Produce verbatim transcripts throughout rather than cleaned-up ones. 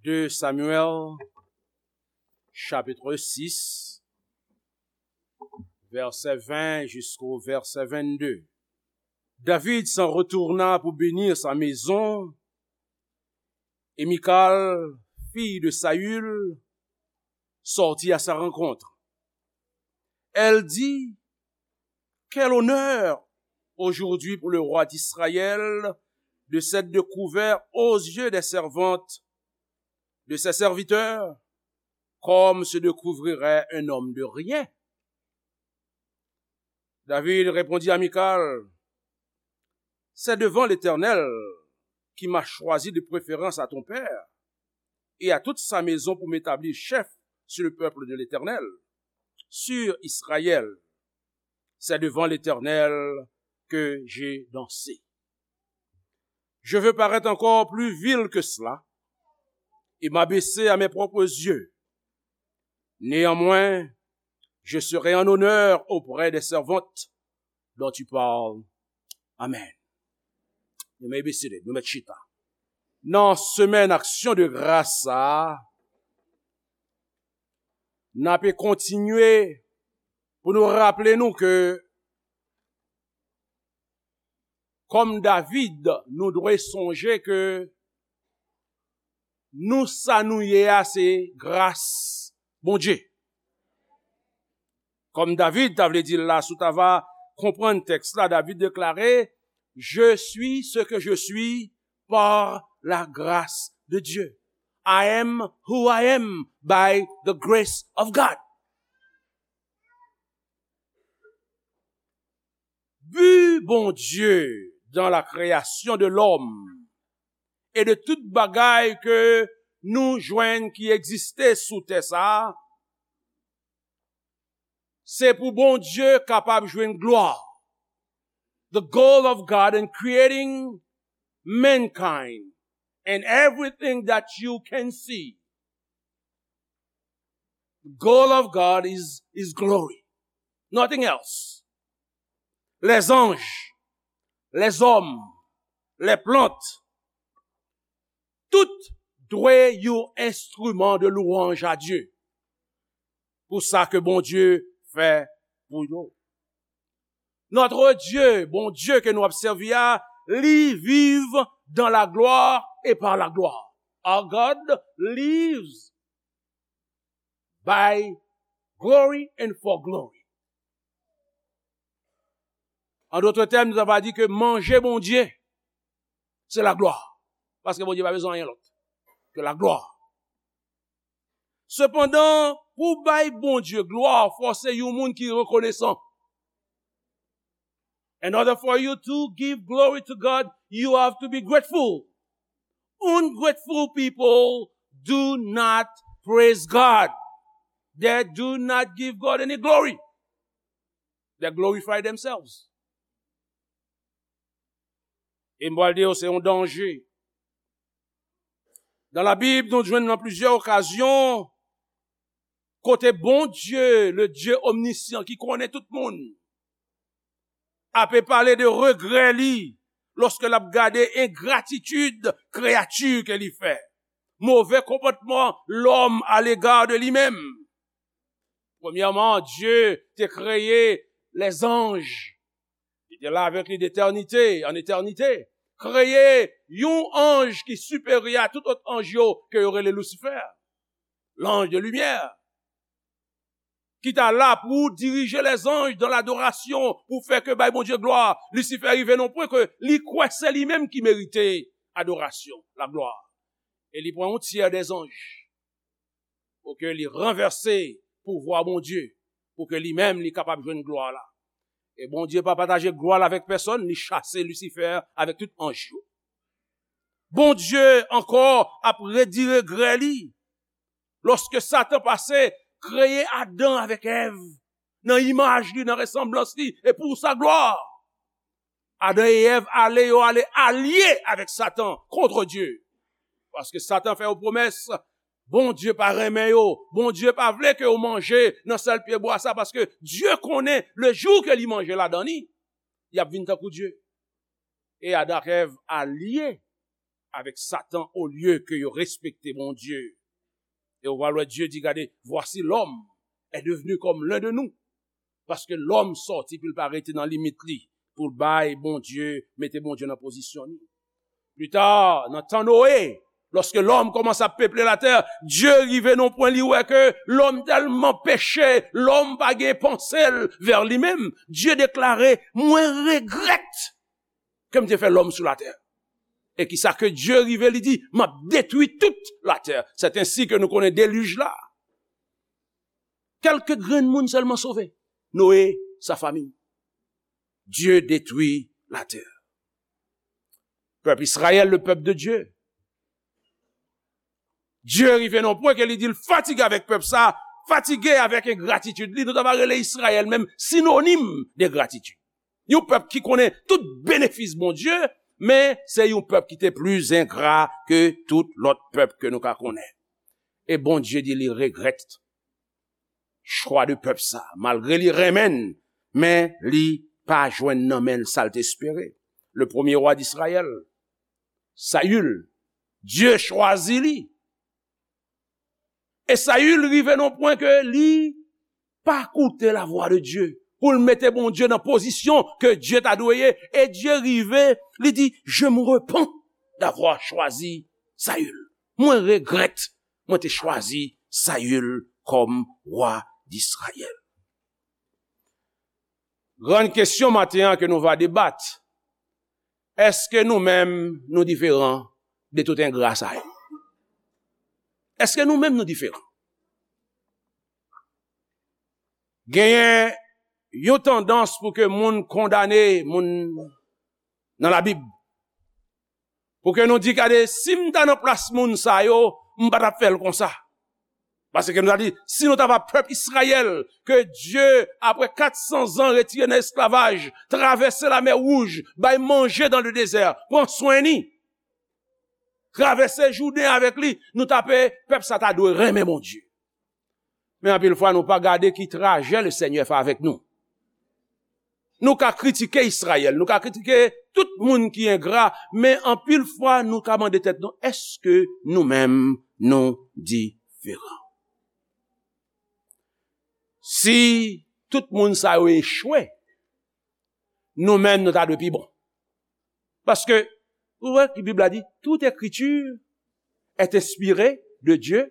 Deux Samuel, chapitre six, verset vingt jusqu'au verset vingt-deux. David s'en retourna pour bénir sa maison, et Michal, fille de Saül, sortit à sa rencontre. Elle dit, quel honneur aujourd'hui pour le roi d'Israël de s'être découvert aux yeux des servantes de ses serviteurs, comme se découvrirait un homme de rien. David répondit à Michal, c'est devant l'Éternel qui m'a choisi de préférence à ton père et à toute sa maison pour m'établir chef sur le peuple de l'Éternel, sur Israël. C'est devant l'Éternel que j'ai dansé. Je veux paraître encore plus vil que cela et m'abaisser à mes propres yeux. Néanmoins, je serai en honneur auprès des servantes dont tu parles. Amen. Nou mèt bese tèt nou, mèt chita. Nan semèn aksyon de gras sa a, n ape kontinye pou nou raple nou ke, kòm David, nou dwe sonje ke nou, sa nou ye a, se gras Bondye. Kòm David ta vle di l la, si w ta va konprann tèks la, David deklare, je suis ce que je suis par la grâce de Dieu. I am who I am by the grace of God. Bi Bondye dans la création de l'homme et de tout bagay ke nou jwenn ki egziste sou tè sa a, se pou Bondye kapab jwenn glwa. The goal of God in creating mankind and everything that you can see. The goal of God is, is glory. Nothing else. Les anges, les hommes, les plantes, tout dwe yon enstriman de louwanj a Dye pou sa ke Bondye fè pou yo. Notre Dieu, Bondye ke nou ap sèvi a, li viv dans la gloire et par la gloire. Our God lives by glory and for glory. An dòt tèm, nou ta va di ke manje Bondye, se laglwa. Paske Bondye pa bezwen anyen lòt ke laglwa. Sepandan, pou bay Bondye glwa, fò se yon moun ki rekonesan. In order for you to give glory to God, you have to be grateful. Ungrateful people do not praise God. They do not give God any glory. They glorify themselves. E m pral di yo, se yon danje. Dan Labib, nou jwenn nan plizyè okazyon kote Bondye, le Dieu omniscient, ki konnen tout moun, ape pale de regrè li lòske l ap gade engratitid kreyati ke li fè, move konpòtman lòm alega de li menm. Premyèman, Dye te kreye lèzanj. Li te la avèk li detènite, an etènite. Kreye yon anj ki siperyè a tout lòt anj yo, ke yo rele Lisifè, l'ange de lumière, ki ta la pou dirije lèzanj dan ladorasyon, pou fè ke bay Bondye glwa. Lisifè rive nan pwen ke li kwè se li menm ki merite adorasyon, laglwa. E li pran yon tyè dèzanj pou ke li ranvèse pouvwa Bondye, pou ke li menm li kapab jwenn glwa la. E Bondye pa pataje glwa l avèk pèsonn, li chase Lisifè avèk tout anj yo. Bondye ankò ap redi regrè li lòske Satan pase kreye Adan avèk Èv nan imaj li, nan resanblans li, e pou sa glwa. Adan e Èv ale, yo ale alye avèk Satan kont Dye. Paske Satan fè yo pwomès, Bondye pa renmen yo, Bondye pa vle ke yo manje nan sèl pyebwa sa, paske Dye konnen le jou ke li manje ladan li, y ap vin tankou Dye. E Adan ak Èv alye avèk Satan olye ke yo respekte Bondye. E w pral wè Dye di, gade, voici l'homme est devenu comme l'un de nous. Paske lòm sòti pou l pa rete nan limit li, pou l bay Bondye, mete Bondye nan pozisyon li. Pita, nan tan Noe, lòske lòm kòmanse ap peple latè, Dye rive nan pwen li wè ke lòm tèlman peche, lòm pa gen panse l vè li menm. Dye deklare, mwen regrèt ke m te fè lòm sou latè. E kisa ke Dye rive li di, m ap detwi tout latè. C'est ainsi que nou konnen delij la. Kèlke grenn moun sèlman sove. Noe, sa fami. Dye detwi latè. Pèp Israël, le peuple de Dieu. Dye rive nan pwen ke li di l fatige avèk pèp sa, fatige avèk engratitid li. Nou ta va rele Israël menm sinonim de gratitid. Yon pèp ki konnen tout benefis Bondye, men se yon pèp ki te pli engra ke tout lòt pèp ke nou ka konnen. E Bondye di li regrèt chwa de pèp sa, malgre li renmen l, men li pa jwenn nan men l sa l te espere. Le premier roi d'Israël, Saül, Dye chwazi li. E Saül rive nan pwen ke li pa koute lavwa de Dye, pou l mete Bondye nan pozisyon ke Dye ta dwe ye. E Dye rive, li di, je me repens d'avoir choisi Saül. Mwen regrèt mwen te chwazi Saül kòm wa d'Israyèl. Grann kesyon maten an ke nou va debat, èske nou menm nou diferan de tout engra sa yo? Èske nou menm nou diferan? Genyen yon tandans pou ke moun kondane moun nan Labib. Pou ke nou di, gade, si m ta nan plas moun sa yo, m pa t ap fè l konsa. Paske nou ta di, si nou ta va pèp Izrayèl, ke Dye, apre kat san zan retire nan esklavaj, travèse Lamè Wouj, bay manje dans le désert, pran swen ni, travèse Jouden avèk li, nou ta pe, pèp sa ta dwe renmen Bondye. Men anpil fwa, nou pa gade ki trajè Lesenyè fè avèk nou. Nou ka kritike Izrayèl, nou ka kritike tout moun ki engra, men anpil fwa, nou ka mande tèt nou, èske nou menm nou diferan? Si tout moun sa yo echwe, nou menm nou ta dwe pi bon. Paske, ou wè ki Bib la di, toute écriture est inspirée de Dieu,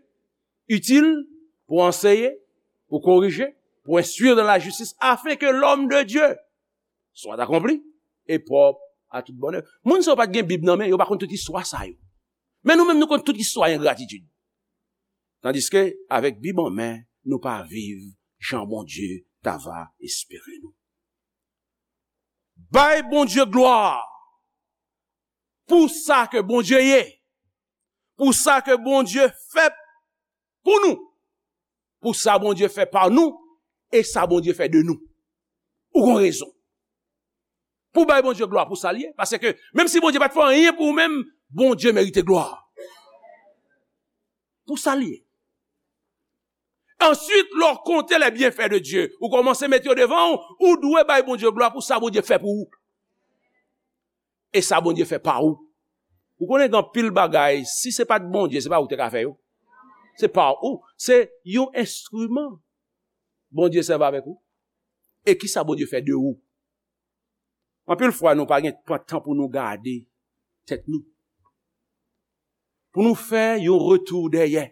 utile pour enseigner, pour corriger, pour instruire dans la justice, afin que l'homme de Dieu soit accompli et propre à toute bonne œuvre. Moun sa yo pa t gen Bib nan men, yo pa konn tout istwa sa yo. Men nou menm nou konn tout istwa engratitid. Tandiske, avèk Bib an men, nou pa viv jan Bondye ta va espere nou. Bay Bondye glwa pou sa ke Bondye ye, pou sa ke Bondye fè pou nou, pou sa Bondye fè pa nou, e sa Bondye fè de nou. Ou gon rezon pou bay Bondye glwa pou sa l ye, paske menm si Bondye pa t fè anyen pou ou menm, Bondye merite glwa pou sa l ye. Answit, lè w konte les bienfaits de Dieu, ou kòmanse mete yo devan w, ou dwe bay Bondye glwa pou sa Bondye fè pou ou. E sa Bondye fè pa ou. Ou konnen gen anpil bagay, si se pa t Bondye, se pa ou ki te ka fè yo. Se pa ou, se yon enstriman Bondye sèvi avèk ou. E kisa Bondye fè de ou? Anpil fwa, nou pa gen pran tan pou nou gade tèt nou. Pou nou fè yon retou dèyè.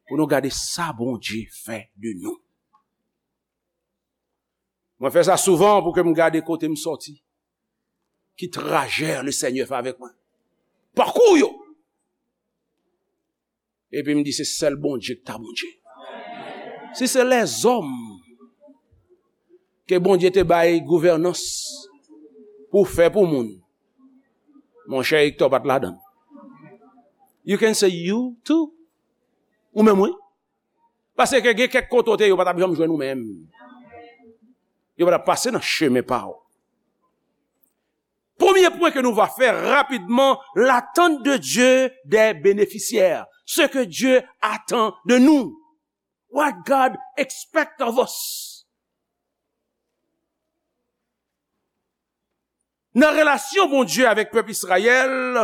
Pou nou gade sa Bondye fè de nou. Mwen fè sa souvan pou ke m gade kote m sòti. Ki trajè Lesenyè fè avèk mwen. Pakou yo. Epi m di, se sèl Bondye ki ta Bondye. Si se lèzòm ke Bondye te bay gouvènans pou fè pou moun, monchè, Hector pa t ladan l. You can say you too. Ou menm, wi. Paske gen kèk kote w te ye, yo pa t ap janm jwenn ou menm. Yo pa t ap pase nan chemen pa w. Premye pwen ke nou va fè rapidman, l'attente de Dieu des bénéficiaires. Ce que Dieu attend de nous. What God expects of us. Nan relasyon Bondye avèk pèp Izrayèl,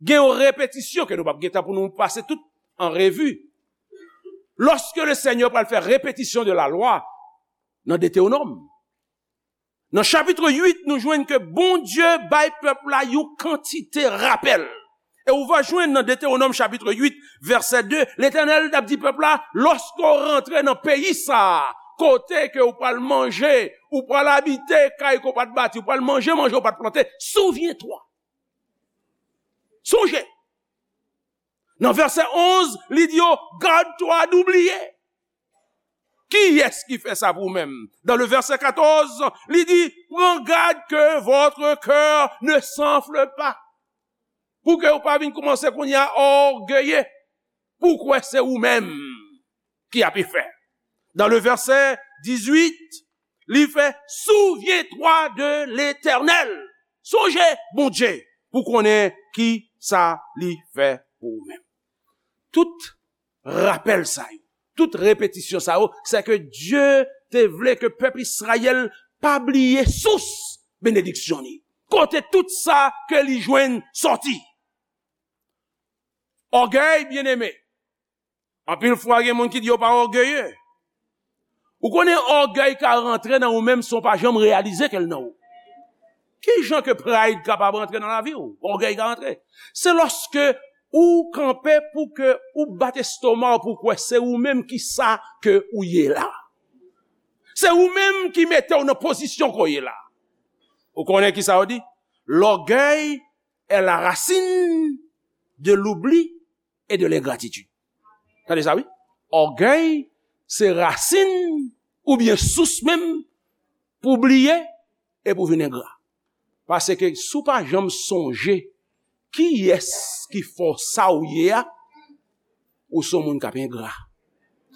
Gen yon repetisyon ke nou p ap gen tan pou nou pase tout an revi. Lòske le Senyè pral fè repetisyon de la lwa nan Detewonòm, nan chapit uit, nou jwenn ke Bondye bay pèp la yon kantite rapèl. E ou va jwenn nan Detewonòm chapit uit, vèsè de, Letènèl t ap di pèp la, lòske w rantre nan peyi sa a, kote ke w pral manje, ou pral abite kay ke w pa t bati, ou pral manje manje w pa t plante, souvyen twa. Sonje. Nan vèsè onz, li di yo, gad twa d ou bliye. Kiyès ki fè sa pou ou menm? Dan le vèsè katòz, li di, pran gad ke votre cœur ne s'enfle pas. Pou ke ou pa vin kòmanse kounye a ògeye, pou kwè se ou menm ki ap fè. Dan le vèsè dizuit, li fè, souvyen twa de Letènèl. Sonje Bondye pou konnen ki sa li fè pou ou menm. Tout rapèl sa yo, tout repetisyon sa yo, se ke Dye te vle ke pèp Izrayèl pa bliye sous benediksyon li, kote tout sa ke li jwenn sòti. Ògèy, byeneme, anpil fwa gen moun ki di yo pa ògeye. Ou konnen ògèy ka rantre nan ou menm san w pa janm reyalize ke l nan ou. Ki jan ke pride kapab rantre nan lavi w? Ògèy ka rantre. Se lòske ou kanpe pou ke ou bat estoma w pou kwè se ou menm ki sa ke ou ye la. Se ou menm ki mete w nan pozisyon ke w ye la. Ou konnen ki sa yo di? L'orgueil est la racine de l'oubli et de l'ingratitude. Tande sa, wi. Ògèy se rasin oubyen sous menm pou bliye e pou vin engra. Paske si w pa janm sonje kiyès ki fè w sa w ye a, ou se yon moun k ap engra.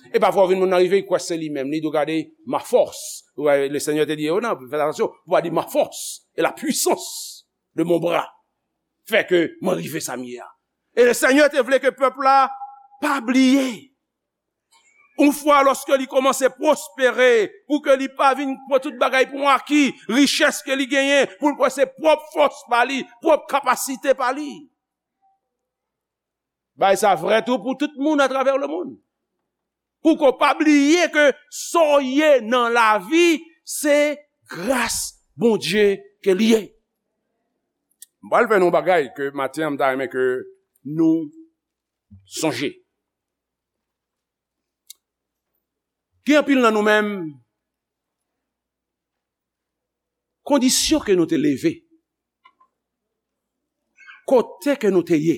E pafwa w vin moun nan rive, li kwè se li menm. Li di w, gade, ma force. Ou wè, le Senyè te di yo, non, fè atansyon, pou pa di ma force et la puissance de mon bras fè ke mwen rive sa m ye a. E le Senyè te vle ke pèp la pa bliye. Yon fwa lòske li kòmanse pwospere, pou ke li pa vin pran tout bagay pou yon aki, richès ke li genyen, pou l kwè se pwòp fòs pa li, pwòp kapasite pa li. Bagay sa vrè tou pou tout moun atravè lemonn. Pou ke w pa bliye ke sa w ye nan lavi, se gras Bondye ke li ye. M pral fè nou yon bagay ke maten an m ta renmen ke nou sonje. Gen anpil nan nou menm, kondisyon ke nou te leve, kote ke nou te ye,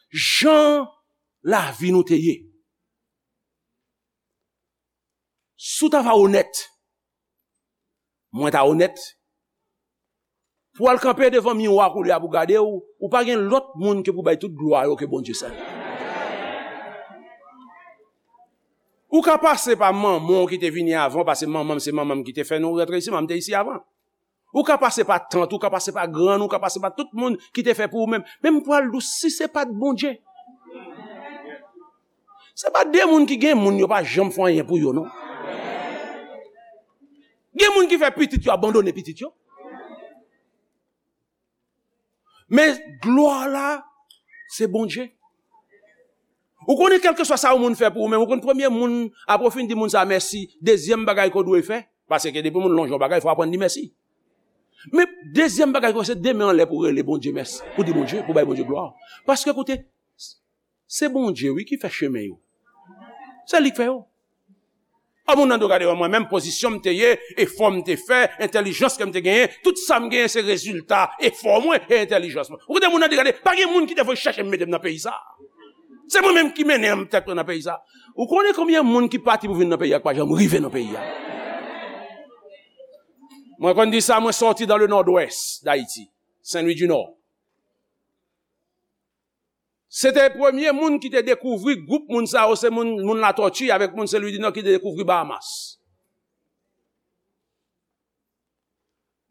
jan lavi nou te ye. Si w ta va onèt, mwen ta onèt, pou w al kanpe devan miwa koulye a pou gade w, ou pa gen lòt moun ke pou bay tout glwa yo ke Bondye sèl. Ou ka pase pa manman w ki te vini avan w, paske manman m se manman m ki te fè nou rantre isi, manman m te isi avan. Ou ka pase pa tant, ou ka pase pa grann, ou ka pase pa tout moun ki te fè pou ou menm. Men m pral di w, si se pa t Bondye, se pa de moun ki gen moun, yo pa janm fè anyen pou yo, non. Gen moun ki fè pitit yo abandone pitit yo. Men glwa la, se Bondye. Ou konnen, kèlkeswa sa yon moun fè pou ou menm, ou konn premye moun, apre w fin di moun sa mèsi, dezyèm bagay ke w dwe fè, paske depi moun lonje yon bagay, fò w aprann di mèsi. Men dezyèm bagay ke w fè, se de men anlè pou w rele Bondye mèsi, pou di Bondye, pou bay Bondye glwa. Paske koute, se Bondye, wi, ki fè chemen yo. Se li k fè yo. A moun nan do gade mwen menm, pozisyon m te ye, efò m te fè, entèlijans ke m te genyen, tout sa m genyen se rezilta efò mwen e entèlijans mwen. Ou koute moun nan di gade, pa gen moun ki te voye chèche m mete m nan peyi sa. Se mwen menm ki mennen tèt mwen nan peyi sa. Ou konnen konbyen moun ki pati pou vin nan peyi a ki pa janm rive nan peyi a? Mwen konn di sa, mwen sòti dans le nord-ouest d'Haïti, Saint-Louis du Nord. Se te premye moun ki te dekouvri gwoup moun sa yo, se moun, moun Latòti avèk moun Sen Lwi di Nò ki te dekouvri Bahamas.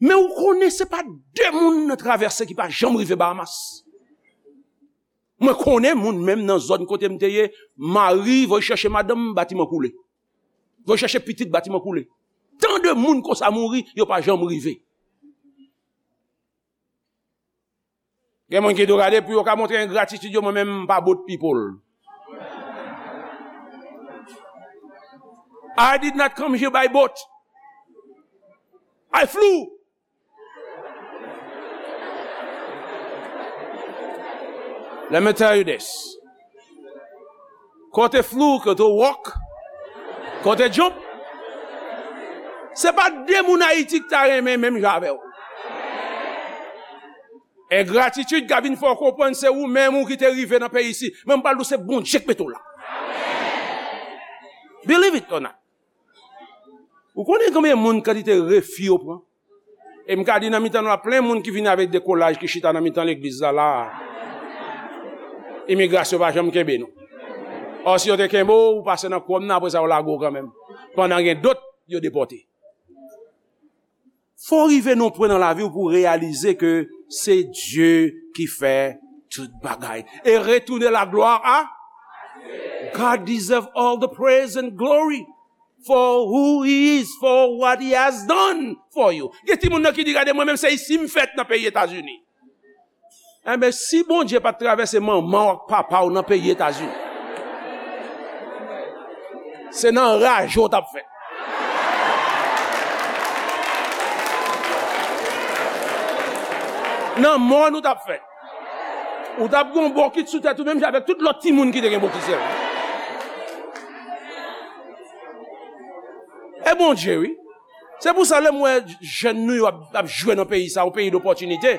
Men ou konnen se pa de moun nan travèse ki pa janm rive Bahamas. Mwen konnen moun menm nan zòn kote m te ye, mari voye chèche madanm, batiman koule. Voye chèche pitit, batiman koule. Tan de moun konsa mouri, yo pa janm rive. Gen moun ki tou gade pou yo ka montre engratitid yo, mwen menm m pa boat people. I did not come here by boat. I flew. Let me tell you this. Kote flew, kote walk, kote jump. Se pa de moun Ayiti ki ta renmen menm jan avè w. Engratitid ka vin fè w konprann se ou menm ou ki te rive nan peyi isi. Men m pral di w se Bondye k mete w la. Believe it or not. Ou konnen konbyen moun kantite refi yo pran? E m ka di nan mitan nou la, plen moun ki vini avèk dekolaj ki chita nan mitan legliz la, la a. Imigrasyon pa janm kenbe nou. Ò, si yo te kenbe w, ou pase nan kòm nan, apre sa yo lage w kanmenm. Pandan gen dòt, yo depòte. Fò w rive nan pwen nan lavi w pou w reyalize ke se Dye ki fè tout bagay. E retounen laglwa a God deserve all the praise and glory for who he is, for what he has done for you. Gen timoun nan ki di, "Gade mwen menm, se isi m fèt nan peyi Etazini." Enben, si Bondye pa t travèse manman w ak papa w nan peyi Etazini, se nan raje w t ap fèt. Nan mòn ou t ap fèt. Ou t ap gen yon bokit sou tèt ou, menm jan avèk tout lòt timoun ki te gen bokit sèl. E Bondye, wi. Se pou sa, lè m wè jèn nou yo ap, ap jwe nan peyi sa, yon peyi dopòtinite,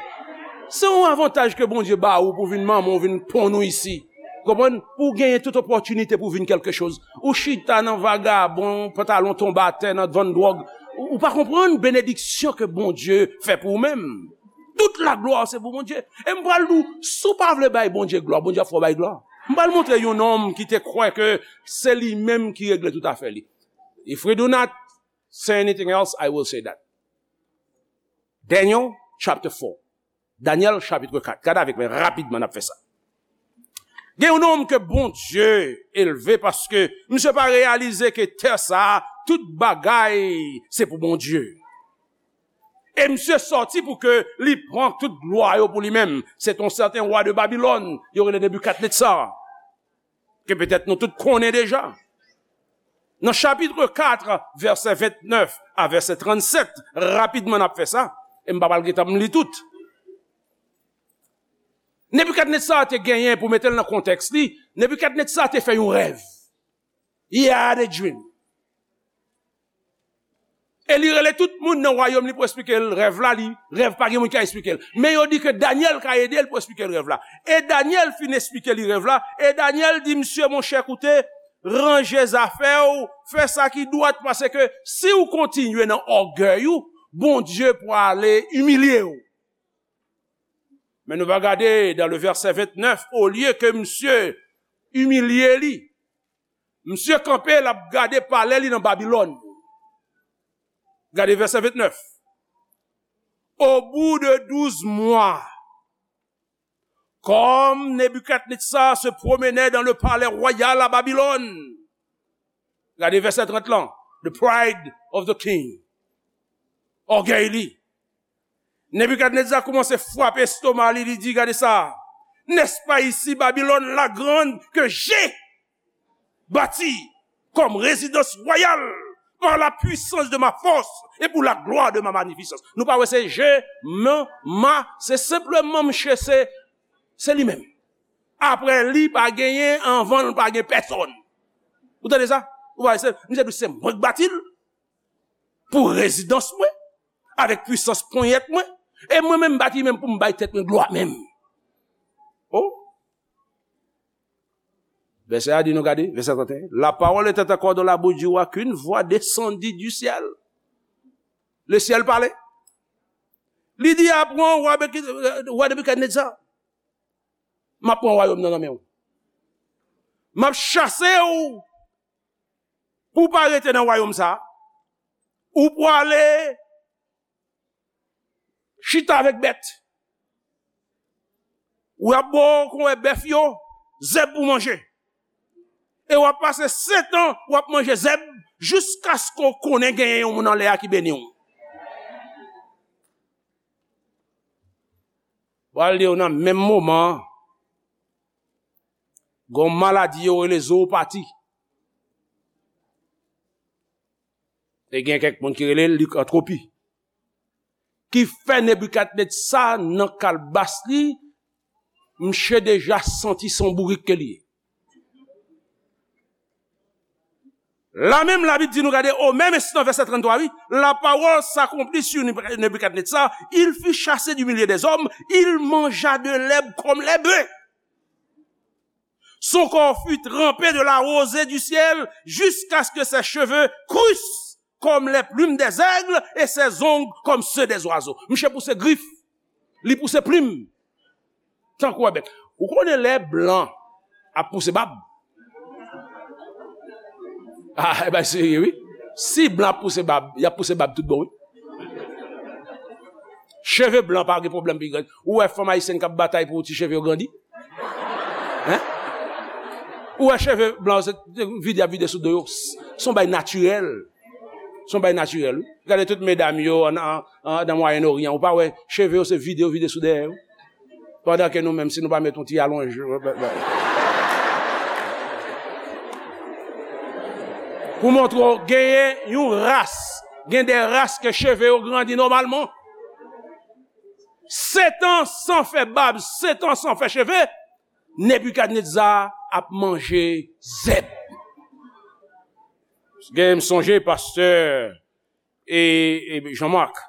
se yon avantaj ke Bondye ba ou pou vin manman w, vin ponn ou isi. Konprann? Pou w genyen tout opòtinite pou w vin kèlke choz. Ou chita nan vagabon, pantalon tonbe atè, nan vann dwòg. Ou, ou pa konprann benediksyon ke Bondye fè pou ou menm. Tout laglwa se pou Bondye. E m pral di w, si w pa vle bay Bondye glwa, Bondye ap fè w bay glwa. M pral montre yon nonm ki te kwè ke se li menm ki regle tout afè li. If we do not say anything else, I will say that. Daniel chapter four. Danyèl chapit kat. Gade avèk mwen rapidman, n ap fè sa. Gen yon nonm ke Bondye elve paske misye pa reyalize ke tè sa a, tout bagay se pou Bondye. E misye sòti pou ke li pran tout glwa yo pou li menm. Se yon sèten wa de Babilòn, yo rele Nebikadnetza, ke petèt nou tout konnen deja. Nan chapit kat, vèsè vennèf a vèsè trannsèt, rapidman n ap fè sa, e m pa pral gentan m li tout. Nebikadnetza te genyen, pou mete l nan kontèks li, Nebikadnetza te fè yon rèv. He had a dream. E li rele tout moun nan wayòm li pou eksplike l rèv la, li, rèv pa gen moun ki ka eksplike l. Men yo di ke Danyèl ka ede l pou eksplike l rèv la. E Danyèl fin eksplike li rèv la, e Danyèl di, "Misye, monchè, koute, ranje zafè w, fè sa ki dwat, paske si w kontinye nan ògèy ou, Bondye pwale imilye w." Men nou va gade dans le verset vingt-neuf, olye ke misye imilye li, misye kanpe, l ap gade palè li nan Babilòn. Gade vèsè vennèf. Au bout de douze mois, comme Nebuchadnezzar se promenait dans le palais royal à Babylone. Gade vèsè trant lan. The pride of the king. Ògèy li. Nebikadneza kòmanse frape estoma li, li di, "Gade sa! N'est-ce pas ici Babylone la grande que j'ai bâtie comme résidence royale par la puissance de ma force et pour la gloire de ma magnificence?" Nou pa wè se je, men, ma, se senpleman misye se, se li menm. Apre li, pa genyen, anvan l, pa gen pèsonn. Ou tande sa? Ou pa wè se, misye di se mwen k bati l pou rezidans mwen, avèk pwisans ponyèt mwen, e mwen menm m bati menm pou m bay tèt mwen glwa menm. Oh! Vèsè a di nou, gade, vèsè trant et un. La parole était encore dans la bouche du roi qu'une voix descendit du ciel. Le ciel parlait. Li di, "Aprann, wa Beki-, wa Nebikadneza, m ap pran wayòm nan nan men w. M ap chase w pou w pa rete nan wayòm sa a. Ou pwale chita avèk bèt. W ap bo konwè bèf yo zèb pou manje. E w ap pase sèt an, w ap manje zèb, jiskaske w konnen genyen yon moun anlè a ki beni w." Pral di w nan menm moman an, gen yon maladi yo rele zoopati. E gen kèk moun ki rele l likantwopi. Ki fè Nebikadnetza nan kalbas li, misye deja santi se yon bourik ke li ye. La menm, Labib di nou, gade, au même instant, verset trente-trois, wi, la parole s'accomplit sur Nebukadnezar, il fut chassé du milieu des hommes, il mangea de l'herbe comme les bœufs. Son corps fut trempé de la rosée du ciel jusqu'à ce que ses cheveux crussent comme les plumes des aigles et ses ongles comme ceux des oiseaux. Misye pouse grif, li pouse plim, tankou yon bèt. Ou konnen lè blan ap pouse bab? Ah, e bay serye, wi. Si blan ap pouse bab, y ap pouse bab tout bon, wi. Cheve blan pa gen pwoblèm pou grandi. Ou wè fanm ayisyèn k ap batay pou ti cheve yo grandi? Hein? Ou wè cheve blan se vide y ap vide sou do yo? Se yon bay natirèl. Se yon bay natirèl, wi. Gade tout medam yo an, an, an, nan Mwayen Oryan. Ou pa wè cheve yo se vide yo vide sou dèyè yo? Pandan ke nou menm, si nou pa met yon ti alonj, pou montre w, genyen yon ras, gen de ras ke cheve yo grandi nòmalman. Setan san fè bab, setan san fè cheve, Nebikadneza ap manje zèb. Gen, m sonje pastè e, e Jean Marc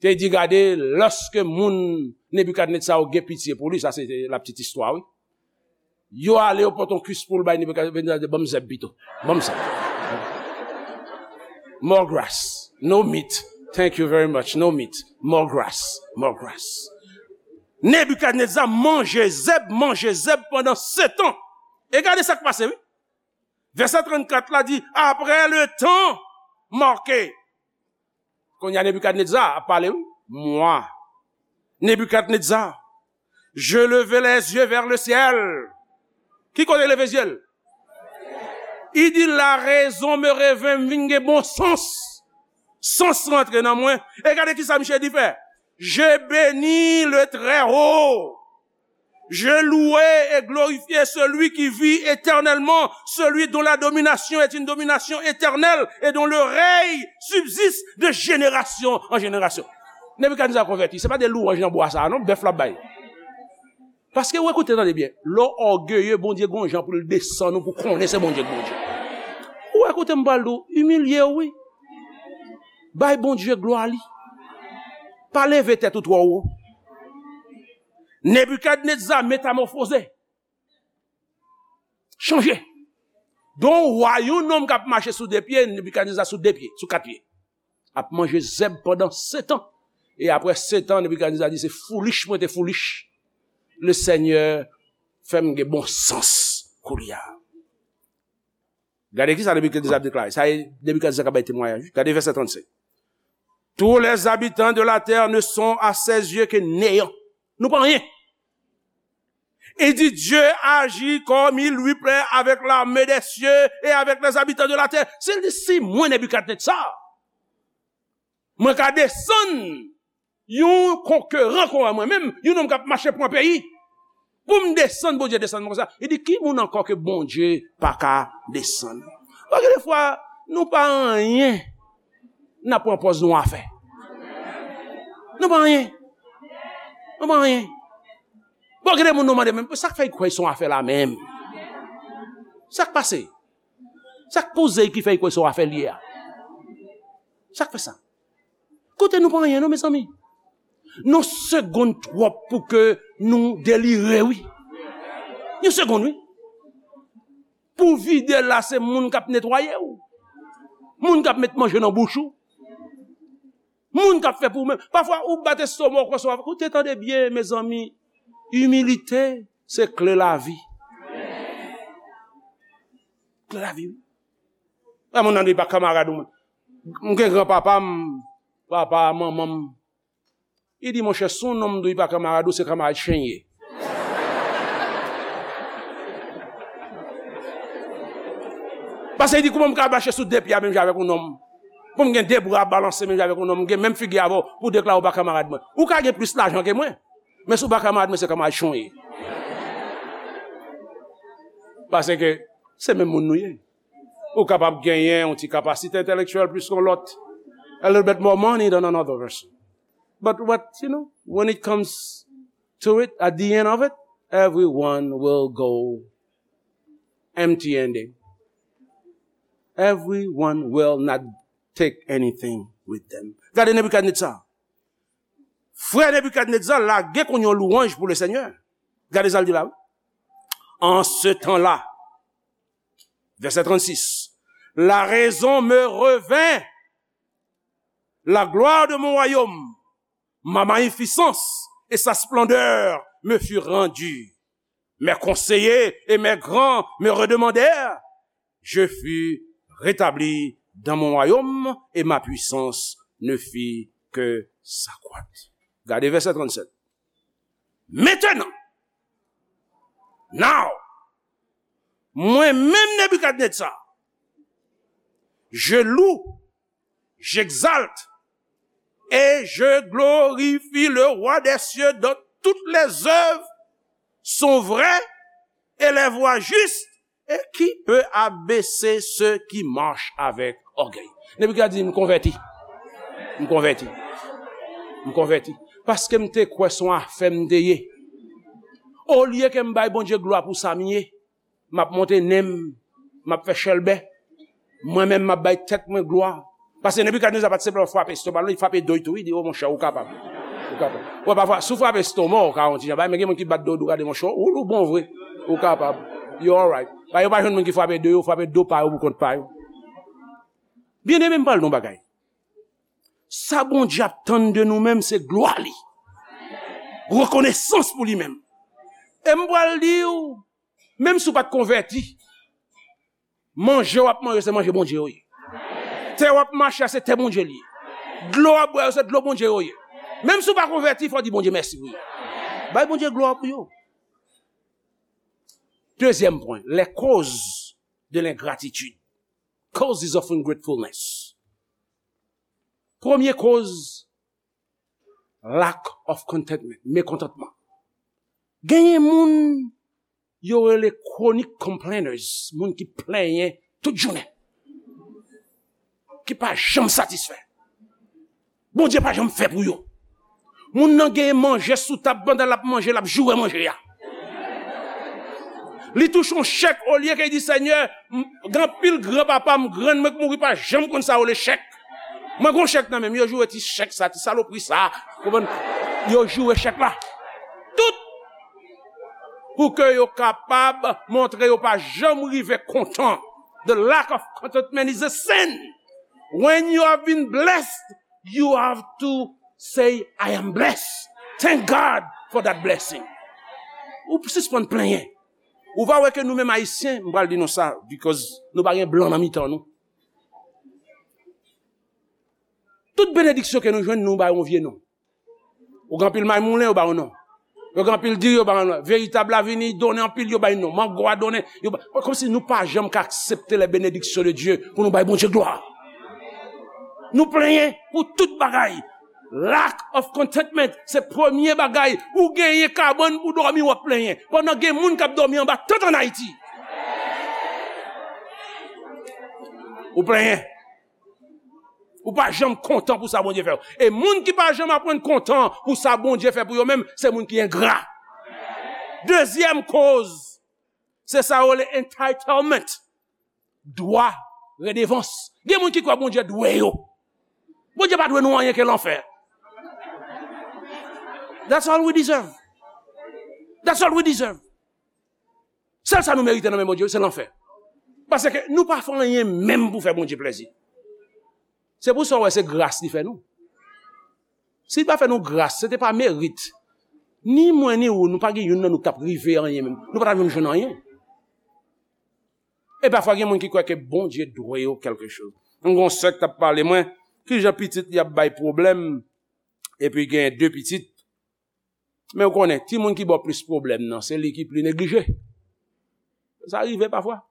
te di, gade, lòske moun Nebikadneza yo gen pitye pou li, sa se la petite histoire, wi. Yo ale, yo pote yon kuis poul bay Nebikadneza, di, ban m zèb pito. Ban m zèb. More grass. No meat. Thank you very much. No meat. More grass. More grass. Nebikadneza manje zèb, manje zèb pandan setan. E gade sa k pase, wi. Vèsè trannkat la di, après le temps marqué. Kounye a Nebikadneza ap pale, wi. Moi, Nebikadneza, je levai les yeux vers le ciel. Ki kote leve zye l? Li di, la raison me revint, m vin gen bon sans. Sans rantre nan mwen. E gade ki sa misye di fè. Je bénis le Très-Haut. Je louai et glorifiai celui qui vit éternellement, celui dont la domination est une domination éternelle et dont le règne subsiste de génération en génération. Nebikadneza konvèti, se pa de lwanj nan bwa sa a non, bèf l ap bay. Paske, w ekoute, tande byen, lè w ògeye, Bondye gon jan pou l desann ou, pou konnen se Bondye k Bondye. Ou ekoute, m pral di w, imilye w, wi. Bay Bondye glwa li. Pa leve tèt ou twò wo. Nebikadneza metamòfoze. Chanje. Don wa, yon nonm k ap mache sou de pye, Nebikadneza sou de pye, sou kat pye. Ap manje zèb pandan setan. E apre setan, Nebikadneza di, se foolish mwen te foolish. Le Senyè fè m gen bon sans kounye a. Gade ki sa Nebikadneza ap deklare. Sa e Nebikadneza k ap bay temwayaj. Gade vèsè trannsenk. Tous les habitants de la terre ne sont à ses yeux que néant. Nou pa anyen. Il dit, Dieu agit comme il lui plaît avec l'armée des cieux et avec les habitants de la terre. Si l di, si mwen, Nebikadneza, mwen ka desann yon konkeran kon mwen menm, yon nonm k ap mache pran peyi, pou m desann, Bondye desann mwen konsa. Li di, ki moun ankò ke Bondye pa ka desann? Paske defwa, nou pa anyen, n ap pran pòz nou afè. Nou pa anyen. Nou pa anyen. Bon, gen de moun nou mande menm, sa k fè l kwè se yon afè la menm? Sa k pase? Sa k poze l ki fè l kwè se yon afè l ye a? Sa k fè sa? Kote nou pa anyen non, mezanmi. Yon segonn twòp pou ke nou delire, wi. Yon segonn, wi. Pou vide la, se moun k ap netwaye w. Moun k ap met manje nan bouch ou. Moun k ap fè pou ou menm. Pafwa, ou bat estoma w konsa, w ap, koute, tande byen, mezanmi. Imilite, se kle lavi. Kle lavi, wi. Lè moun nan di pa kanmarad ou, mwen. M gen granpapa m, papa, manman m. Li di, monchè, si yon nonm di w li pa kanmarad ou, se kanmarad chen l ye. Paske li di, kouman m ka mache sou de pye a menm jan avèk yon nonm? Pou m gen de bra balanse menm jan avèk yon nonm, m gen menm figi avè w, pou w deklare w pa kanmarad mwen. Ou ka gen plis lajan ke mwen. Men si w pa kamarad mwen, se kamarad chon w ye. Paske se menm moun nou ye. Ou kapab genyen yon ti kapasite entèlektyèl plis ke yon lòt. A little bit more money than another person. But what, you know, when it comes to it, at the end of it, everyone will go empty handed. Everyone will not take anything with them. Gade Nebikadnetza. Frè Nebikadnetza lage konn yon lwanj pou le Senyè. Gade sa l di la. En ce temps-là, verset trente-six, la raison me revint, la gloire de mon royaume, ma magnificence et sa splendeur me furent rendues. Mes conseillers et mes grands me redemandèrent. Je fus rétabli dans mon royaume et ma puissance ne fit que s'accroître. Gade vèsè trannsenk. Maintenant, now, mwen menm Nebikadnetza, je loue, j'exalte et je glorifie le roi des cieux dont toutes les œuvres sont vraies et les voies justes, et qui peut abaisser ceux qui marchent avec orgueil. Nebikadnetza di, m konvèti. M konvèti. M konvèti. Paske m te kwè se yon afè m te ye. Olye ke m bay Bondye glwa pou sa m ye, m ap monte nen m, m ap fè chèlbè. Mwen menm, m ap bay tèt mwen glwa. Paske Nebikadnetza pa t senpleman frape estoma l, li frape do l tou, li di, o monchè, ou kapab. Ou kapab. Wè, pafwa, si w frape estoma w, ou ka yon ti jan bay, men gen moun ki bat do w, gade monchè, ou, ou bon vre. Ou kapab. You alright. Pa yo pa jwenn moun ki frape do yo, frape do pa yo pou kont pa yo. Byeneme, m pral di w yon bagay. Sa Bondye ap tann de nou menm, se glwa li. Rekonesans pou li menm. E m pral di w, menm si w pa t konvèti, manje w ap manje, se manje Bondye yo ye. Tè w ap mache a, se tè Bondye li ye. Dlo w ap bwè yo, se dlo Bondye yo ye. Menm si w pa konvèti, fò w di Bondye mèsi pou yo. Bay Bondye glwa pou yo. Dezyèm pwen, les causes de l'ingratitude. Causes of ungratefulness. Premye koz, lack of contentment, mekontantman. Genyen moun yo rele chronic complainers, moun ki plenyen tout jounen, ki pa janm satisfè. Bondye pa janm fè pou yo. Moun nan genyen manje sou tab, pandan l ap manje, l ap joure manje a. Li touche yon chèk, olye ke li di, Senyè, m, gen anpil granpapa m, grann mwen k mouri, pa janm konn sa yo rele chèk. Mwen gon chèk nan men m, yo joure ti chèk sa, ti salopri sa. Konprann? Yo joure chèk la. Tout pou ke yo kapab montre yo pa janm rive kontan. The lack of contentment is a sin. When you have been blessed, you have to say, I am blessed. Thank God for that blessing. Ou sispann plenyen. Ou pa wè ke nou menm Ayisyen, m pral di nou sa, because nou pa gen blan nan mitan nou. Tout benediksyon ke nou jwenn, nou ba yo yon vye non. Ou gen anpil may moulen, yo ba yo non. Yo gen anpil diri, yo ba yo non. Veritab la vini, donnen anpil, yo bay non. Mango a donnen, yo ba. Kòmsi nou pa janm ka aksepte les bénédictions de Dieu pou nou bay Bondye glwa. Nou plenyen pou tout bagay. Lack of contentment, se premye bagay. Ou genyen kabann pou dòmi, w ap plenyen. Pandan gen moun k ap dòmi anba tant ann Ayiti. Ou plenyen. Ou pa janm kontan pou sa Bondye fè w. E moun ki pa janm aprann kontan pou sa Bondye fè pou yo menm, se moun ki engra. Dezyèm koz, se sa yo rele entitlement. Dwa, redevans. Gen moun ki kwè Bondye dwe yo. Bondye pa dwe nou anyen ke lanfè. That's all we deserve. That's all we deserve. Sèl sa nou merite nan men Bondye, se lanfè. Paske nou pa fè anyen menm pou fè Bondye plèzi. Se pou sa w wè se gras li fè nou. Si li pa fè nou gras, se te pa merit. Ni mwen, ni ou, nou pa gen youn nan nou k t ap rive anyen menm. Nou pa t ap janm jwenn anyen. E pafwa gen moun ki kwè ke Bondye dwe yo kèlke choz. M gon sè k t ap pale mwen, kijan pitit li ap bay pwoblèm, epi gen de pitit. Men ou konnen, timoun ki ba w plis pwoblèm nan, se li ki pli neglije. Sa rive pafwa.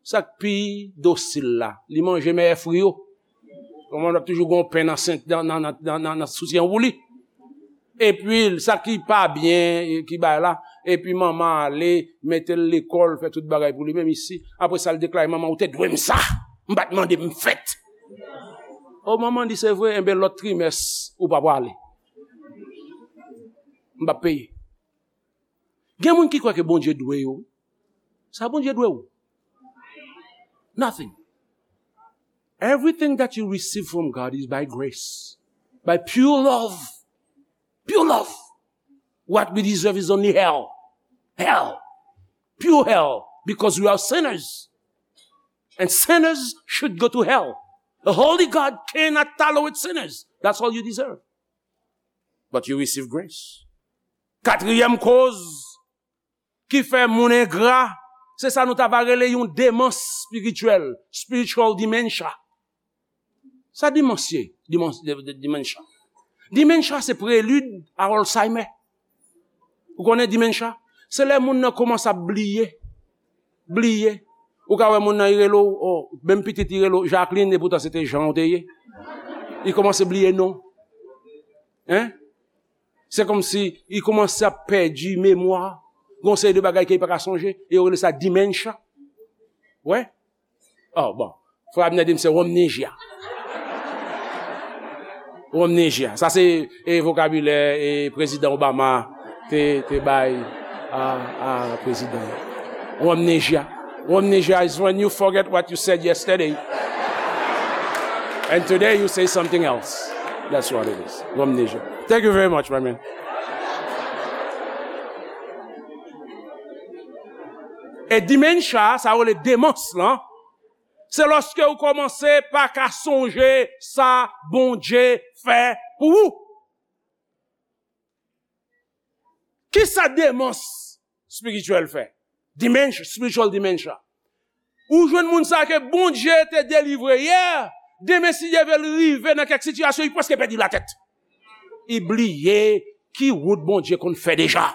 Sa k pi dosil la, li manje mèyè fri yo. Kòman l ap toujou gen yon pen nan sent, nan, nan soutyen pou li. Epi, sa ki pa byen, ki bay la, epi manman ale, mete l lekòl, fè tout bagay pou li menm isi. Apre sa, l deklare, "Manman, ou te dwe m sa. M pa t mande, m fèt." O, manman di, "Se vre, enben lòt trimès, ou pa prale. M p ap peye." Gen moun ki kwè ke Bondye dwe yo. Sa Bondye dwe ou? Nothing. Everything that you receive from God is by grace, by pure love. Pure love. What we deserve is only hell. Hell. Pure hell. Because we are sinners. And sinners should go to hell. A holy God cannot tolerate sinners. That's all you deserve. But you receive grace. Katriyèm koz ki fè moun engra, se sa nou ta va rele yon demans espirityèl, spiritual dementia. Sa demans ye? Demans, de, de, dementia. Dementia se prelid a Alzheimer. Ou konnen dementia? Se lè moun nan kòmanse ap bliye. Bliye. Ou ka wè moun nan, li rele w, o, menm pitit li rele w Jacqueline, epoutan se te Jean ou te ye. Li kòmanse bliye non. Hein? Se kòmsi li kòmanse ap pèdi memwa. Gon seri de bagay ke li pa ka sonje. E yo rele sa dementia. Wè? Oh, bon. Frè Abner di m se amnesia. Amnesia. Sa se, e, vokabilè, e, Prezidan Obama te, te bay a, a prezidan. Amnesia. Amnesia is when you forget what you said yesterday. And today you say something else. That's what it is. Amnesia. Thank you very much, my man. E dementia, sa yo rele demans lan, se lòske ou kòmanse pa ka sonje sa Bondye fè pou ou. Kisa demans espirityèl fè? Dementia, spiritual dementia. Ou jwenn moun sa ke Bondye te delivre yè, demen si Dye vle l rive nan kèk sitiyasyon, li prèske pèdi latèt. Li bliye ki wout Bondye konn fè deja.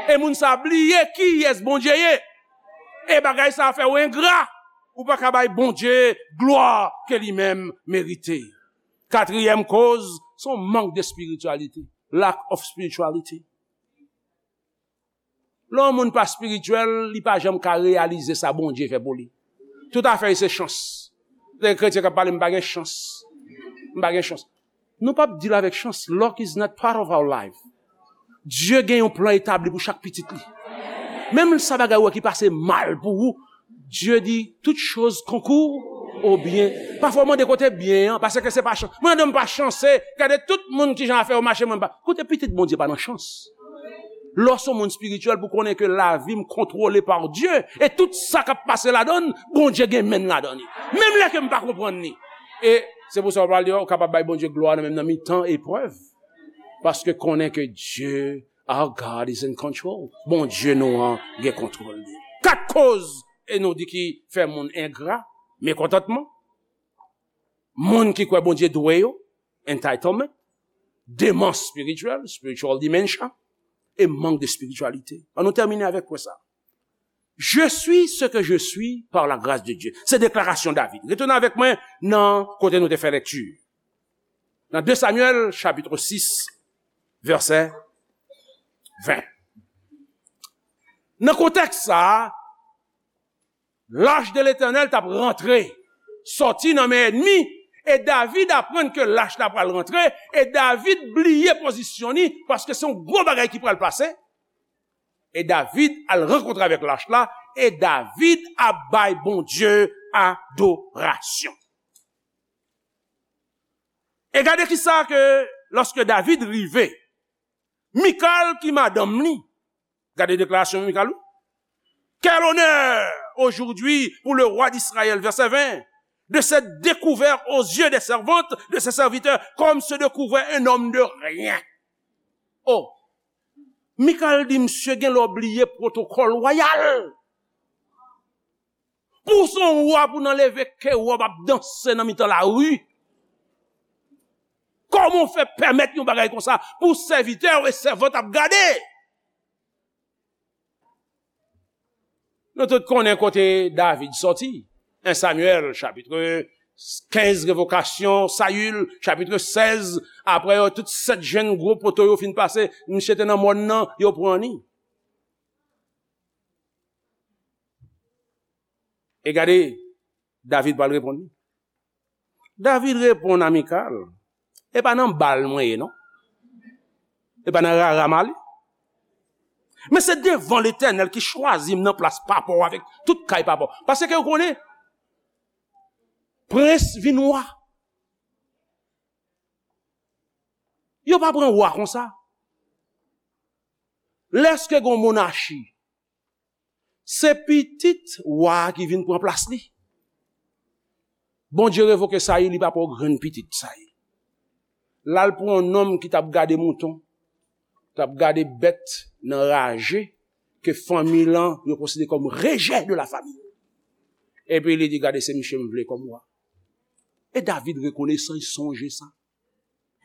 E moun sa bliye kiyès Bondye ye. E bagay sa fè w engra. Ou pa ka bay Bondye glwa ke li menm merite. Katriyèm koz, se yon mank de spirityalite. Lack of spirituality. Lè yon moun pa espirityèl, li pa janm ka reyalize sa Bondye fè pou li. Tout afè li se chans. Lè kretyen k ap pale, "M pa gen chans. M pa gen chans." Nou p ap deal avèk chans. Luck is not part of our life. Dye gen yon plan etabli pou chak pitit li. Menm sa bagay ou wè ki pase mal pou ou, Dye di, "Toutes choses concourent au bien." Pafwa w mande kote byen an, paske se pa chans. Mwen, non, m pa chanse. Gade tout moun kijan afè yo mache, mwen pa. Kote pitit Bondye pa nan chans. Lè w se yon moun espirityèl pou konnen ke lavi m kontwole pa Dye, e tout sa k ap pase ladan l, Bondye gen men l ladan li. Menm lè ke m pa konprann li. E se pou sa w pral di, w kapab bay Bondye glwa nan menm nan mitan eprèv. Paske konnen ke Dye, our God is in control. Bondye nou an gen kontwòl li. Kat koz, e nou di ki fè moun engra, mekontantman, moun ki kwè Bondye dwe yo, entitlement, demans espirityèl, spiritual dementia, e mank de spirityalite. Ann nou tèmine avèk pwen sa. Je suis ce que je suis par la grâce de Dieu. Se deklarasyon David. Retounen avèk mwen nan kote nou te fè lekti. Nan de Samyèl, chapit sis, vèsè ven. Nan kontèks sa a, lach de Letènèl t ap rantre, sòti nan men ènmi, e David aprann ke lach la pral rantre, e David bliye pozisyon li, paske se yon gwo bagay ki pral pase. E David al rankontre avèk lach la, e David ap bay Bondye adorasyon. E gade kisa ke, lòske David rive, Mikal ki madanm li, gade deklarasyon Mikal, wi. Quel honneur aujourd'hui pour le roi d'Israël, verset vingt, de s'être découvert aux yeux des servantes de ses serviteurs comme se découvrait un homme de rien. Oh, Mikal di, "Misye gen lè w bliye pwotokòl wayal. Pou w se yon wa, pou w nan leve ke w ap danse nan mitan lari. Kòman w fè pèmèt yon bagay konsa pou sèvitè w e sèvant ap gade?" Nou tout konnen kote David sòti. En Samyèl, chapit kenz revokasyon, Sayil, chapit sèz, apre yo, tout sèt jenn gwo poto yo fin pase, misye te nan mòn nan, yo pran li. E gade, David pral reponn li. David reponn a Mikal, "E pa nan bal mwen ye, non. E pa nan rara m ale. Men se devan Letènèl ki chwazi m nan plas papa w avèk tout kay papa w." Paske yo konnen, prens vin wa. Yo pa pran wa konsa. Lèske gon monachi, se pitit wa a ki vin pran plas li. Bondye revoke Sayil, li pa pran grenn pitit Sayil. L al pran yon nonm ki t ap gade mouton, t ap gade bèt nan raje, ke fanmi lan yo konsidere kòm rejè de la fami. Epi li di, "Gade, se misye m vle kòm wa." E David rekonesan, li sonje sa.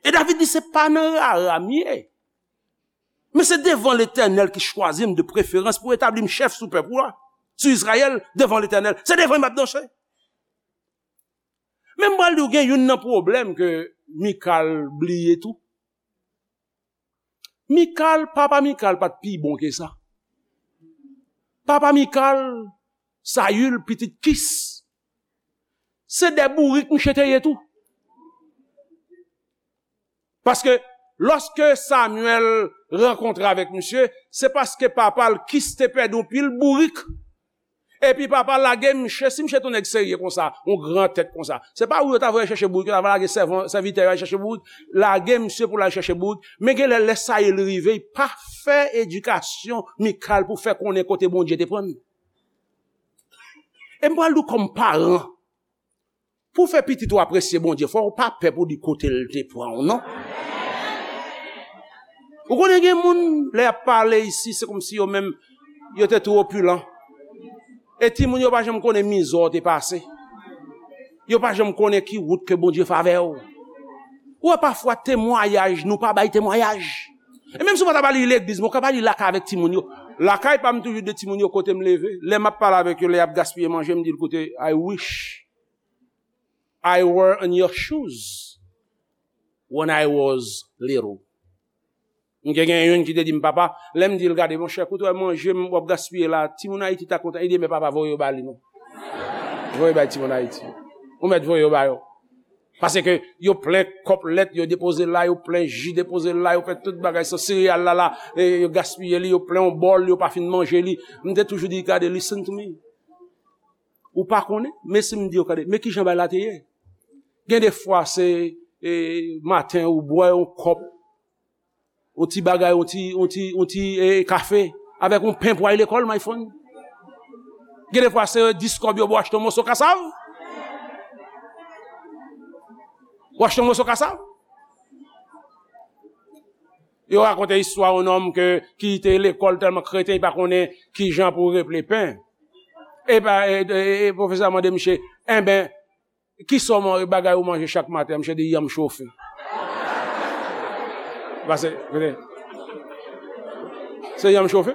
E David di, "Se pa nan rara m ye. Men se devan Letènèl ki chwazi m de preferans pou etabli m chèf sou pèp ou a, sou Izrayèl, devan Letènèl. Se devan l m ap danse." Men m pral di w gen youn nan pwoblèm ke Mikal bliye tou. Mikal, papa Mikal pa t pi bon ke sa. Papa Mikal, Sayil, pitit Kis, se de bourik misye te ye tou. Paske lòske Samyèl rankontre avèk misye, se paske papa l Kis te pèdi yon pil bourik. Epi papa lage misye, si misye te yon nèg serye konsa, yon gran tèt konsa, se pa ou yo ta voye chèche bourik, yo ta va lage sèvan, sèvitè yo al chèche bourik, lage misye pou l al chèche bourik. Men gen lè, lè Sayil rive, li pa fè edikasyon Mikal pou fè konnen kote Bondye te pran l. E m pral di w kòm paran, pou w fè pitit ou apresye Bondye, fò w pa pè pou di kote l te pran w, non. Ou konnen gen moun, lè y ap pale isi, se kòmsi yo menm, yo te twò opilan. E timoun yo pa janm konnen mizè w te pase. Yo pa janm konnen ki wout ke Bondye fè avè w. Ou wè pafwa temwayaj, nou pa bay temwayaj. E menm si w pa ta ba li legliz, men w ka ba li lakay avèk timoun yo. Lakay pa m toujou di timoun yo kote m leve. Lè m ap pale avèk yo, lè y ap gaspiye manje, m di l, "Koute, I wish I were in your shoes when I was little." M te gen youn ki te di m, "Papa," lè m di l, "Gade, monchè, koute w ap manje m, w ap gaspiye la, timoun Ayiti ta kontan." Li di, "Men papa, voye yo ba li non. Voye bay timoun Ayiti. Ou mèt voye yo ba yo." Paske yo plen kòp lèt, yo depoze la, yo plen ji, depoze la, yo fè tout bagay, sa sereyal la, la, e, yo gaspiye li, yo plen yon bòl, yo pa fin manje li. M te toujou di, "Gade, listen to me. Ou pa konnen, men si m di yo, gade, men kijan bay la te ye." Gen de fwa, se, e, maten, ou bwè yon kòp, yon ti bagay, yon ti, yon ti, yon ti, e, kafe, avèk yon pen pou al lekòl, my friend. Gen de fwa, se dis kòb yo ba w achte yon moso kasav. Ou achte yon moso kasav. Yo rakonte istwa yon nonm ke, ki te lekòl tèlman kreten, li pa konnen kijan pou reple pen. E pa, e, e, e pwofesè a mande misye, "Enben, kisa w man-, bagay ou manje chak maten?" Misye di, "Yanm chofe." Pase, koute. Se yanm chofe.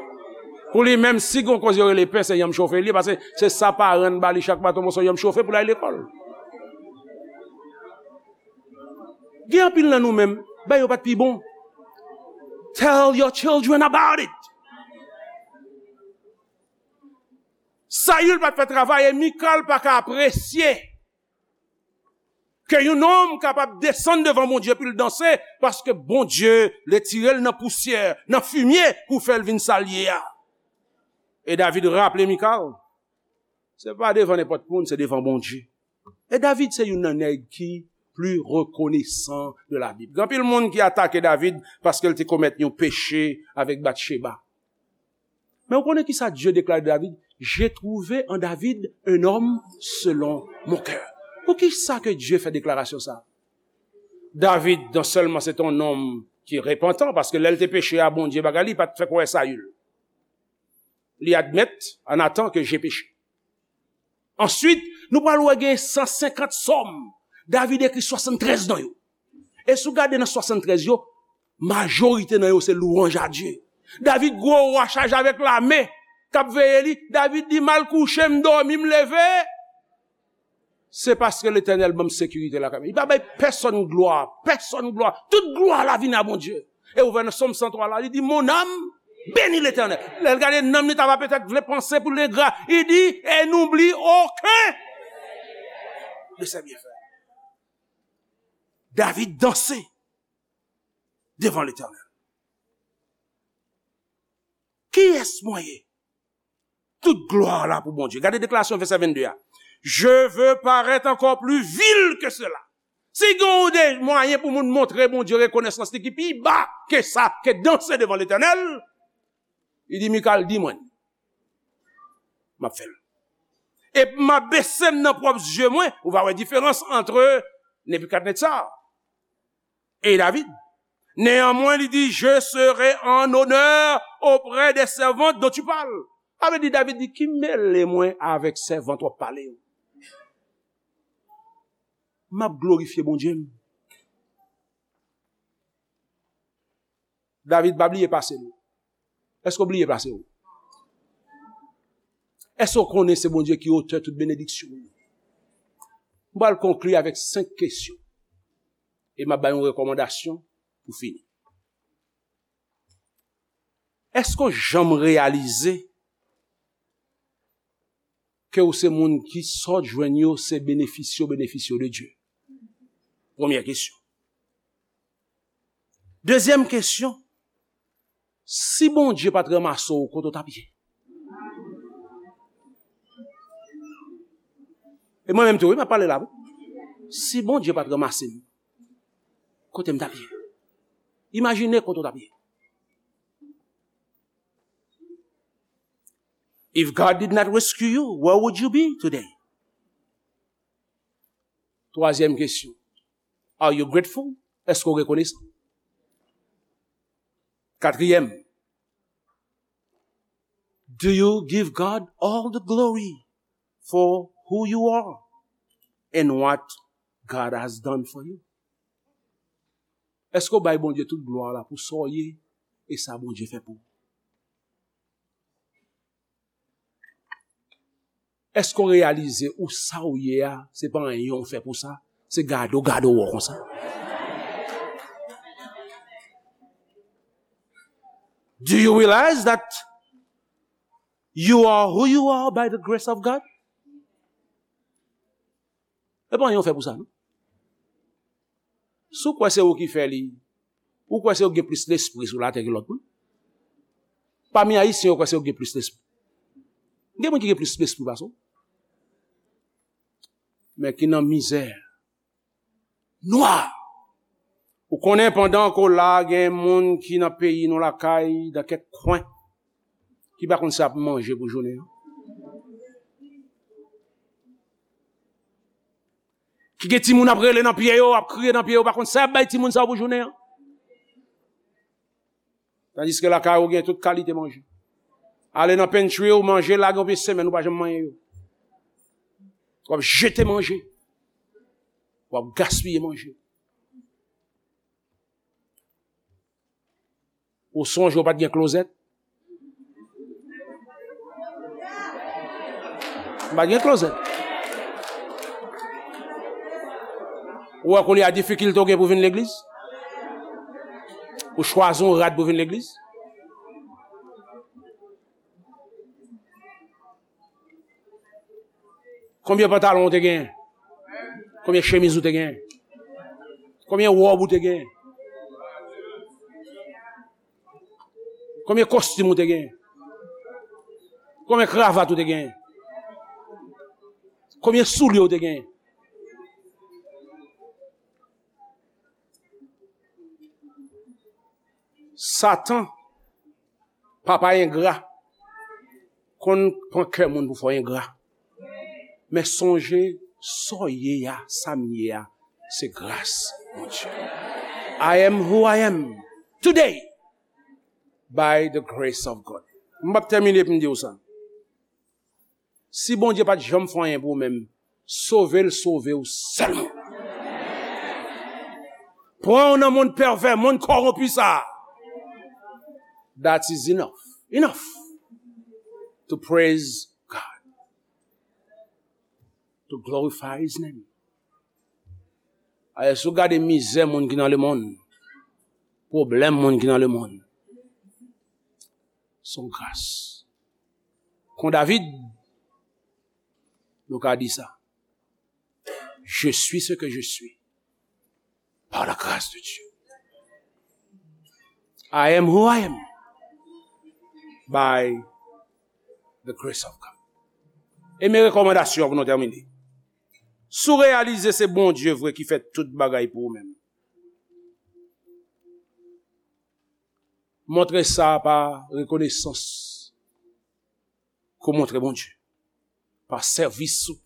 Pou li menm, si gon koze yo rele pen, se yanm chofe li ye, paske se sa paran l ba li chak maten, yon moso yanm chofe pou l al lekòl. Gen anpil nan nou menm, bagay yo pa t pi bon. Tell your children about it. Sayil pa t fè travay e Mikal pa ka apresye ke yon nonm kapab desann devan Bondye pou l danse, paske Bondye retire l nan pousyè, nan fimye, pou fè l vin sa l ye a. E David raple Mikal, se pa devan nenpòt moun, se devan Bondye. E David se youn nan nèg ki pli rekonesan de la Bib. Gen anpil moun ki atake David paske l te komèt yon peche avèk Batcheba. Men ou konnen ki sa Dye deklare de David? "J'ai trouvé en David un homme selon mon cœur." Poukisa ke Dye fè deklarasyon sa? David, non sèlman se te yon nonm ki repantan, paske lè l te peche a Bondye, bagay li pa t fè kwè Sayil. Li admèt, "En attendant que j'ai péché." Answit, nou pral wè gen san senkant sòm. David ekri swasanntrèz nan yo. E si w gade nan swasanntrèz yo, majorite nan yo se lwanj a Dye. David gwo wa chaje avèk lame k ap veye li. David di, "M al kouche, m dòmi, m leve." Se paske Letènèl ban m sekirite lakay mwen. Li pa bay pèsonn glwa, pèsonn glwa. Tout glwa la vin a Bondye. E ou wè nan Sòm san twa la, li di, mon âme, bénis l'Éternel. Lè l gade nanm li, ta va petèt vle panse pou l engra. Li di, et n'oublie aucun de ses bienfaits. David danse devan Letènèl. Kiyès mwen ye? Tout glwa la pou Bondye. Gade deklarasyon vèsè vennde a. Je veux paraître encore plus vil que cela. Si gen yon de mwayen pou moun montre Bondye rekonesans li ki pi ba ke sa, ke danse devan Letènèl, li di, Mikal, di mwen, m ap fè l. E m ap bese m nan pwòp zye mwen, ou va wè diferans ant Nebikadnetza e David. Néanmoins, li di, je serai en honneur auprès des servantes dont tu parles. Sa vle di, David di, ki mele mwen avèk sèvant w ap pale yo? M ap glorifye Bondye m. David pa bliye pase l. Èske w bliye pase w? Èske w konnen se Bondye ki otè tout benediksyon? M pral konkli avèk senk kesyon. E m ap bay yon rekòmandasyon pou fini. Èske w janm reyalize ke w se moun ki sa w jwenn yo se benefisye w benefisye w de Dye? Premyè kesyon. Dezyèm kesyon, si Bondye pa t ranmase w, kote w t ap ye? E mwen menm tou, wi, m ap pale la, wi. Si Bondye pa t ranmase m, kote m t ap ye? Imajine kote w t ap ye. If God did not rescue you, where would you be today? Twazyèm kesyon. Are you grateful? Èske w rekonesan? Katriyèm. Do you give God all the glory for who you are and what God has done for you? Èske w bay Bondye tout glwa la pou sa w ye e sa Bondye fè pou ou? Èske w reyalize ou sa w ye a, se pa anyen w fè pou sa, se gade w gade w wè w konsa? Do you realize that you are who you are by the grace of God? E pa anyen w fè pou sa, non. Si w kwè se ou ki fè li, ou kwè se ou ki gen plis lespri sou latè ke lòt moun. Pami Ayisyen, yo kwè se yo ki gen plis lespri. Gen moun ki gen plis lespri pase w. Men ki nan mizè nwa. Ou konnen pandan ke w la, gen moun ki nan peyi nou lakay, nan kèk kwen, ki pa konn sa y ap manje pou jounen an. Ki gen timoun ap rele nan pye yo, ap kriye nan pye yo, pa konn sa y ap bay timoun sa yo pou jounen an. Tandiske lakay ou gen tout kalite manje. Ale nan pantry ou, manje lage yon semèn, ou pa janm manyen yo. W ap jete manje. W ap gaspiye manje. Ou sonje ou pa t gen klozèt? M pa t gen klozèt. Ou wè kounye a difikilte w gen pou vin legliz? Ou chwazi yon rad pou vin legliz? Konbyen pantalon ou te genyen? Konbyen chemiz ou te genyen? Konbyen wòb ou te genyen? Konbyen kostim ou te genyen? Konbyen kravat ou te genyen? Konbyen soulye ou te genyen? Satan, papa engra, konn pran kè moun pou fè w engra. Men sonje, sa w ye a, sa m ye a, se gras Bondye. I am who I am today by the grace of God. M ap tèmine pou m di w sa. Si Bondye pa t janm fè anyen pou ou menm, sove l sove w sèlman. Pran w nan monn pèvè, monn kòwonpi sa a. That is enough. Enough to praise God. To glorify his name. Alè, si w gade mizè moun ki nan lemonn, pwoblèm moun ki nan lemonn, se yon gras. Kon David, nou ka di sa. Je suis ce que je suis par la grâce de Dieu. I am who I am by the grace of God. E men rekòmandasyon pou nou tèmine. Si w reyalize se Bondye vre ki fè tout bagay pou ou menm, montre sa pa rekonesans ke w montre Bondye, pa sèvis ou,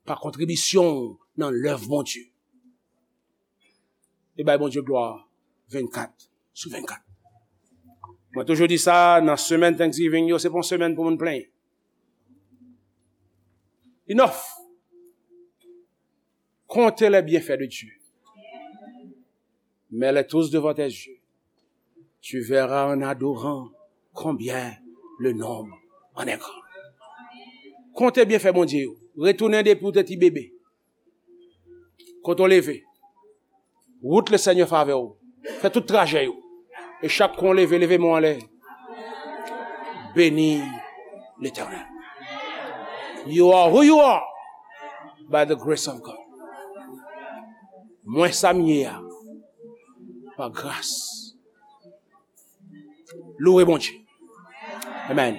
pa kontribisyon w nan lèv Bondye. E bay Bondye glwa vennkat sou vennkat. Mwen toujou di sa, nan semèn Thanksgiving yo, se pa yon semèn pou moun plenyen. Enough. Comptez les bienfaits de Dieu. Mets-les tous devant tes yeux. Tu verras en adorant combien le nombre en est grand. Konte byenfè Bondye yo. Retounen depi w te ti bebe. Kote w leve. Wout Lesenyè favè w. Fè tout trajè yo. E chak kou w leve, leve men w anlè. Beni Letènèl. You are who you are by the grace of God. Mwen sa m ye a, pa gras. Louwe Bondye. Amen.